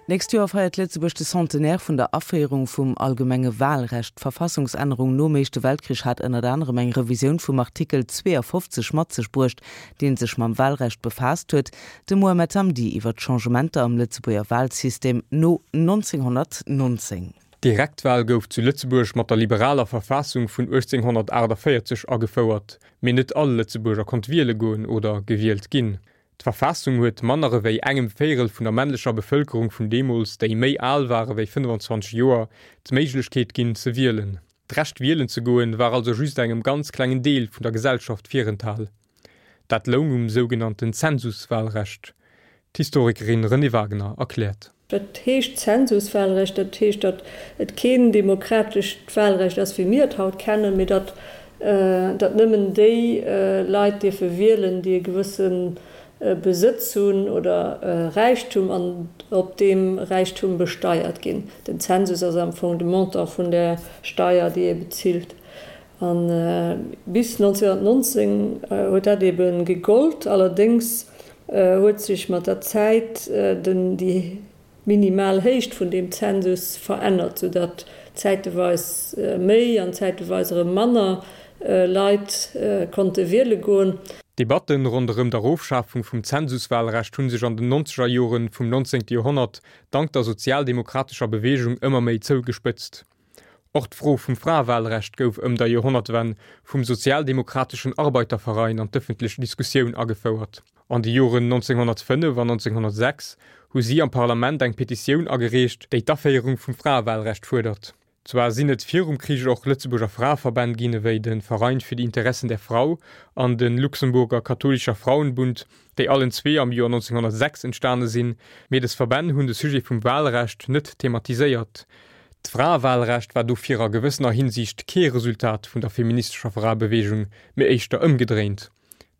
D'nächst Joer feiert Lëtzebuerg de Centenaire vun der Aféierung vum allgemenge Wahlrecht. D'Verfassungsännerung nom Éischte Weltkrich hat ënnert anerem eng Revisioun vum Artikel 52 mat sech bruecht, dee sech mam Wahlrecht befaasst huet. De Mohamed Hamdi iwwer d'Changementer am Lëtzebuerger Wahlsystem no 1919. D'Direktwahl gouf zu Lëtzebuerg mat der liberaler Verfassung vun 1848 agefouert, mee net all Lëtzebuerger konnt wiele goen oder gewielt ginn. D'Verfassung huet manner ewéi engem Véirel vun der männlecher Bevëlkerung vun deemools, déi méi al war ewéi 25 Joer, d'Méiglechkeet ginn ze wielen. D'Recht wielen ze goen war also just engem ganz klengen Deel vun der Gesellschaft virenthal. Dat loung um sougenannten Zensuswahlrecht. D'Historikerin Renée Wagener erkläert. Wat heescht Zensuswahlrecht? Dat heescht, datt et keen demokratescht Wahlrecht ass, wéi mir et haut kennen, mee datt datt nëmmen déi Leit dierfe wielen, déi e gewësse Besëtz hunn oder Räichtum an op deem Räichtum besteiert ginn. Den Zensus ass am Fong de Montant vun der Steier, déi ee bezilt. A bis 1919 huet dat ebe gegollt. Allerdéngs huet sech mat der Zäit den déi minimal Héicht vun deem Zensus verännert, soudatt zäiteweis méi an zäiteweis erëm manner Leit konnte wiele goen. D'Debatten ronderëm d'Erofschafung vum Zensuswahlrecht hu sech an den nonzeger Jore vum 19. Joerhonnert dank der sozialdemokratescher Beweegung ëmmer méi zougespëtzt. Och d'Fro vum Fraewahlrecht gouf ëm der Joerhonnertwenn vum sozialdemokratischen Arbeiterverein an d'ëffentlech Diskussioun agefouert. An de Joren 1905 an 1906 hu si am Parlament eng Petitioun agereecht, déi d'Aféierung vum Fraewahlrecht fuerdert. Zwar sinn et virum Krich och Lëtzebuerger Fraeverbänn ginn, ewéi de Verein für die Interessen der Frau an de Luxemburger Katholischer Frauenbund, déi allen zwee am Joer 1906 entstane sinn, mee des Verbänn hunn de Sujet vum Wahlrecht net thematiséiert. D'Fraewahlrecht war dofir a gewëssener Hinsicht kee Resultat vun der feministescher Fraebeweegung, mee éischter ëmgedréint.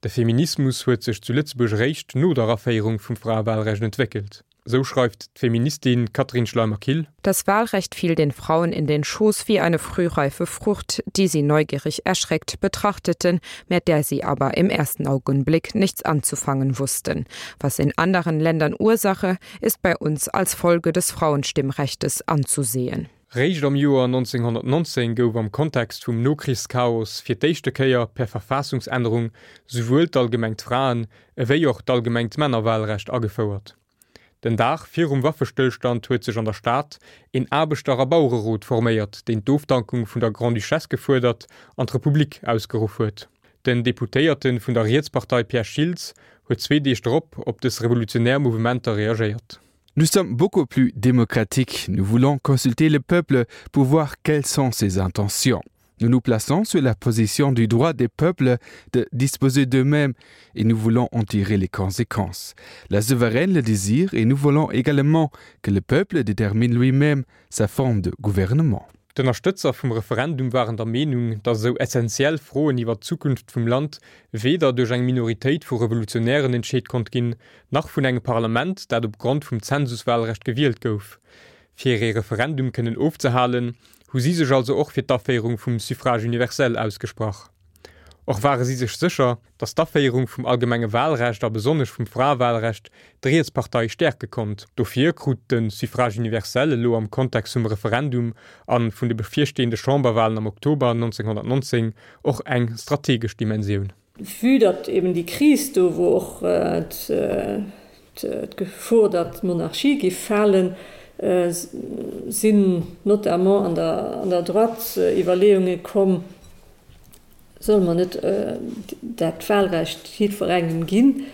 De Feminismus huet sech zu Lëtzebuerg eréischt no der Aféierung vum Fraewahlrecht entwéckelt. Sou schreift d'Feministin Catherine Schleimer-Kill. Das Wahlrecht fiel den Frauen in den Schoß wie eine frühreife Frucht, die sie neugierig erschreckt betrachteten, mit der sie aber im ersten Augenblick nichts anzufangen wussten. Was in anderen Ländern Ursache, ist bei uns als Folge des Frauenstimmrechtes anzusehen. Réischt am Joer 1919 gouf am Kontext vum Nokrichschaos fir d'éischte Kéier per Verfassungsännerung souwuel d'allgemengt Fraen ewéi och d'allgemengt Männerwahlrecht agefouert. Den Dag virum Waffestëllstand huet sech an der Stad een Aarbechter a Bauererot forméiert, deen d'Ofdankung vun der Grande-Duchesse gefuerdert an d'Republik ausgeruff huet. Den Deputéierte vun der Rietspartei Pierre Schiltz huet zwee Deeg drop op dës revolutionär Mouvementer reagéiert. Nous sommes beaucoup plus démocratiques, nous voulons consulter le peuple pour voir quelles sont ses intentions. Nous nous plaçons sur la position du droit des peuples de disposer d'eux-mêmes et nous voulons en tirer les conséquences. La souveraine le désire et nous voulons également que le peuple détermine lui-même sa forme de gouvernement. D'Ënnerstëtzer vum Referendum waren der Meenung, datt esou essenziell Froen iwwer d'Zukunft vum Land weder duerch eng Minoritéit vu Revolutionären entscheet konnt ginn, nach vun engem Parlament, dat op Grond vum Zensuswahlrecht gewielt gouf. Fir ee Referendum kënnen ofzehalen, hu si sech also och fir d'Aféierung vum Suffrage universel ausgesprach. Och ware si sech sécher, datt d'Aféierung vum allgemenge Wahlrecht a besonnesch vum Fraewahlrecht d'Rietspartei stäerke konnt. Dofir krut de Suffrage universel elo am Kontext vum Referendum a vun de bevirstehende Chamberwahlen am Oktober 1919 och eng strategesch Dimensioun. Vue datt eben déi Kris do wor, och d'Gefor, datt d'Monarchie géif falen, sinn notamment an der Droite Iwwerleeunge komm, Solle mer net dat Wahlrecht jiddwerengem ginn?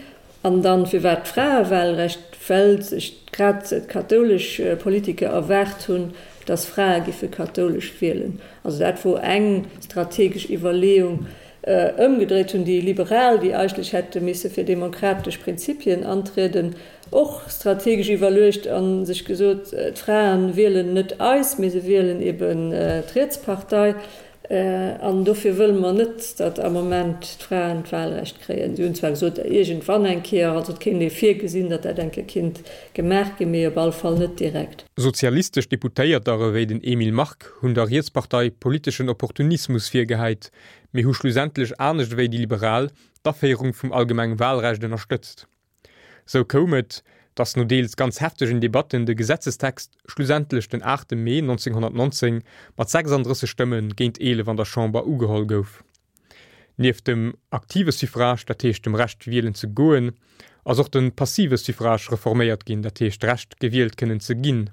An dann, firwat d'Fraewahlrecht? Well sech grad d'kathoulesch Politiker erwaart hunn, dass Frae giffe kathoulesch wielen. Also dat wor eng strategesch Iwwerleeung. Ëmgedréit hunn déi Liberal, déi eigentlech hätte misse fir demokratesch Prinzipien antrieden, och strategesch iwwerluecht a sech gesot, d'Frae wielen net eis, mee se wielen eben d'Rietspartei. An dofir wëlle mer net, datt am Moment d'Fraen d'Wahlrecht kréien. Si hunn zwar gesot, iergendwann eng Kéier, also et kéint ee virgesinn, datt dat eng Kéier kinnt gemaach ginn, mee op alle Fall net direkt. Sozialistesch Deputéierter ewéi den Emile Mark hunn der Rietspartei politeschen Opportunismus virgehäit, mee hu schlussendlech anescht ewéi déi Liberal d'Aféierung vum allgemenge Wahlrecht ënnerstëtzt. Sou koum et, Datt no deels ganz heftegen Debatten de Gesetzestext schlussendlech den 8 Mee 1919 mat 36 Stëmme géint 11 an der Chamber ugeholl gouf. Nieft dem aktive Suffrage, dat heescht dem Recht wielen ze goen, ass och de passive Suffrage reforméiert ginn, dat heescht d'Recht gewielt kënnen ze ginn.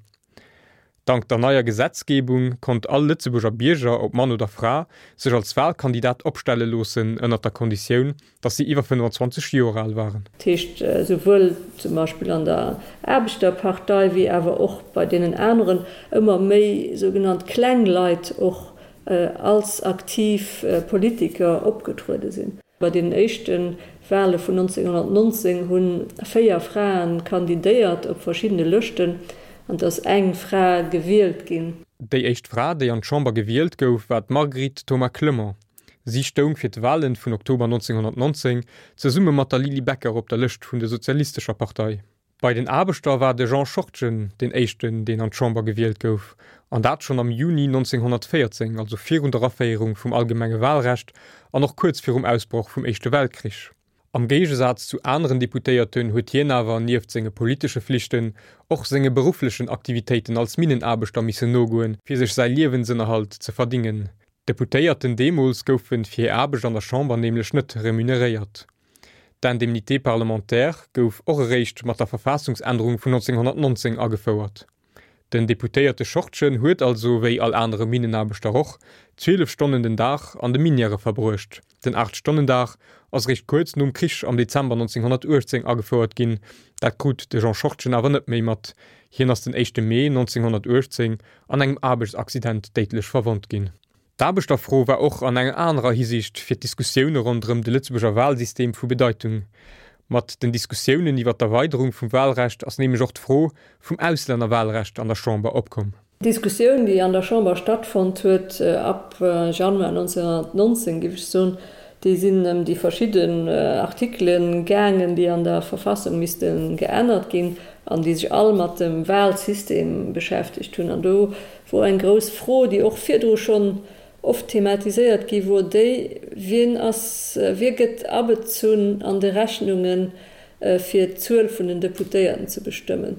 Dank der neier Gesetzgebung konnt all Lëtzebuerger Bierger, ob Mann oder Fra, sech als Wahlkandidat opstelle loossen, ënnert der Konditioun, datt si iwwer 25 Joer al waren. Dat heescht, souwuel zum Beispill an der Aarbechterpartei wéi awer och bei deenen aneren ëmmer méi sougenannt kleng Leit och als aktiv Politiker opgetruede sinn. Bei deenen éischte Wale vun 1919 hu 4 Frae kandidéiert op verschiddene Lëschten an et ass eng Fra gewielt ginn. Déi éischt Fra, déi an d'Chamber gewielt gouf, war d'Marguerite Thoma-Clement. Si stoung fir d'Wale vun Oktober 1919 zesumme mat der Lily Becker op der Lëscht vun der Sozialistescher Partei. Bei den Aarbechter war de Jean Schortgen deen éischten, deen an d'Chamber gewielt gouf, an dat schonn am Juni 1914, also virun der Aféierung vum allgemenge Walrecht an och kuerz virum Ausbroch vum Éischte Weltkrich. Am Géigesaz zu aneren Deputéierten huet hien awer nieft senge politesche Flichten och senge berufflechen Aktivitéiten als Minnenaarbechter missen nogoen, fir sech säi Liewensënnerhalt ze verdingen. D'Deputéierten deemools goufe fir hir Aarbecht an der Chamber nämlech net remuneréiert. D'Indemnité parlementaire gouf och eréischt mat der Verfassungsännerung vun 1919 agefouert. Den Deputéierte Schortgen huet also, wéi all anere Minnenaarbechter och, 12 Stonnen den Dag an de Minièrë verbruecht. Den Aacht-Stonnen-Dag ass eréischt kuerz nom Krich am Dezember 1918 agefouert ginn. Dat krut de Jean Schortgen awer net méi mat. Hien ass den éischte Mee 1918 an engem Aarbechtsaccident déidlech verwonnt ginn. D'Aarbechterfro war och an enger anerer Hisiicht fir d'Diskussioune ronderëm de Lëtzebuerger Walsystem vu Bedeitung. Mat den Diskussiounen iwwer d'Erweiderung vum Walrecht ass nämlech och d'Fro vum Auslännerwalrecht an der Chamber opkomm. D'Diskussioun, déi an der Chamber stattfonnt huet ab Januar 1919, géif ech soen, déi sinn ëm déi verschidden Artikele gaangen, déi an der Verfassung misste geännert ginn an déi sech all mat dem Walsystem beschäftegt hunn. An do wor eng grouss Fro, déi och virdru schonn oft thematiséiert gi wor, déi, Wien ass, wie gëtt abezunn an de Rechnunge fir d'Zuel vun den Deputéierten ze bestëmmen?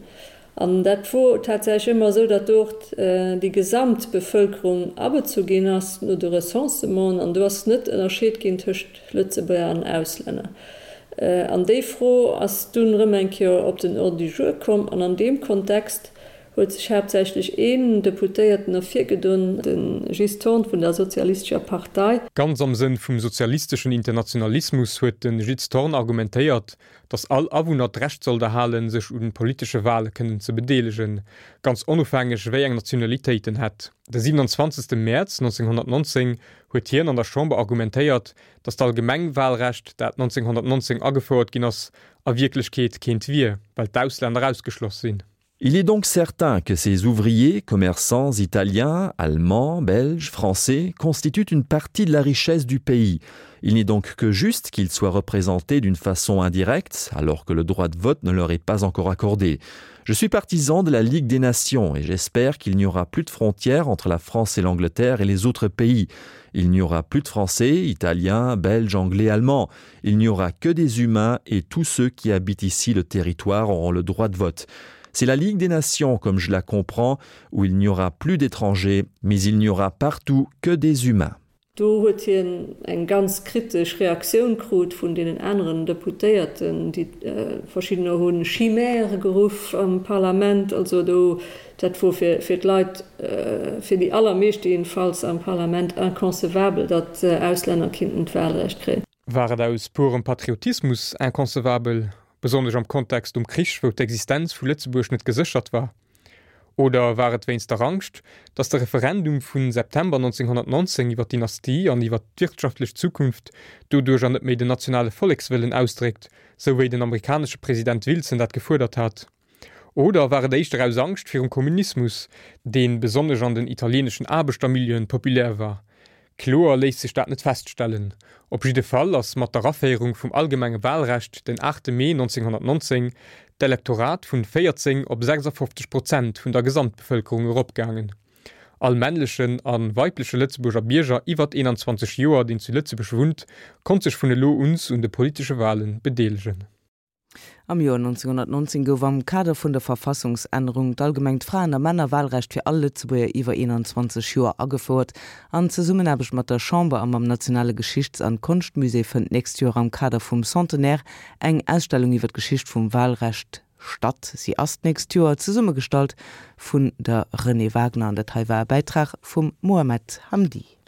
An dat wor tatsächlech ëmmer esou, datt do och déi gesamt Bevëlkerung abezu ginn ass no de Recensementen, an do ass net ënnerscheet ginn tëscht Lëtzebuerger an Auslänner. An déi Fro ass dunn erëm eng Kéier op den Ordre du jour komm, an an deem Kontext huet sech haaptsächlech een Deputéierten ervirgedon, de Gilles Thorn vun der Sozialistescher Partei. Ganz am Sënn vum sozialisteschen Internationalismus huet de Gilles Thorn argumentéiert, datt all Awunner d'Recht sollt erhalen, sech un politesche Wale kënnen ze bedeelegen, ganz onofhängeg wéi eng Nationalitéit en hätt. De 27. Mäerz 1919 huet hien an der Chamber argumentéiert, datt d'Allgemengwalrecht, dat 1919 agefouert ginn ass, a Wierklechkeet keent wier, well d'Auslänner ausgeschloss sinn. Il est donc certain que ces ouvriers, commerçants italiens, allemands, belges, français constituent une partie de la richesse du pays. Il n'est donc que juste qu'ils soient représentés d'une façon indirecte alors que le droit de vote ne leur est pas encore accordé. Je suis partisan de la Ligue des Nations et j'espère qu'il n'y aura plus de frontières entre la France et l'Angleterre et les autres pays. Il n'y aura plus de Français, Italiens, Belges, Anglais, Allemands. Il n'y aura que des humains et tous ceux qui habitent ici le territoire auront le droit de vote. C'est la Ligue des Nations, comme je la comprends, où il n'y aura plus d'étrangers, mais il n'y aura partout que des humains. Do huet hien eng ganz kritesch Reaktioun krut vun deenen aneren Deputéierten, déi verschiddener hu Chimère geruff am Parlament. Also do, dat wor fir fir d'Leit, fir déi allermeeschte jedenfalls am Parlament inconcevabel, datt Auslänner kinnten d'Wahlrecht kréien. War et aus purem Patriotismus inconcevabel, besonnesch am Kontext um Krich, wou d'Existenz vu Lëtzebuerg net geséchert war? Oder war et wéinst der Angscht, datt de Referendum vu September 1919 iwwer d'Dynastie an iwwer d'wirtschaftlech Zukunft doduercher net méi den nationale Vollekswëllen ausdréckt, sou wéi den amerikanesche President Wilson dat gefuerdert hat? Oder war et éischter aus Angscht virum Kommunismus, dee besonnesch an den italieeneschen Aarbechtermilieuen populär war? Kloer léisst sech dat net feststellen. Op jidde Fall ass mat der Aféierung vum allgemenge Wahlrecht den 8 Mee 1919 d'Elektorat vun 14 op 56 Prozent vun der Gesamtbevëlkerung eropgaangen. All männlechen a weibleche Lëtzebuerger Bierger iwwert 21 Joer, deen zu Lëtzebuerg wunnt, konnt sech vun elo uns un de politesche Wahlen bedeelegen. Am Joer 1919 gouf am Kader vun der Verfassungsännerung d'allgemengt Fraen a Männerwahlrecht fir all Lëtzebuerger iwwer 21 Joer agefouert. An Zesummenaarbecht mat der Chamber a mam Nationale Geschichts an Konschtmusée fënnt d'nächst Joer am Kader vum Centenaire eng Ausstellung iwwer d'Geschicht vum Wahlrecht statt. Si ass d'nächst Joer zesummegestallt vun der Renée Wagner an dat hei war e Bäitrag vum Mohamed Hamdi.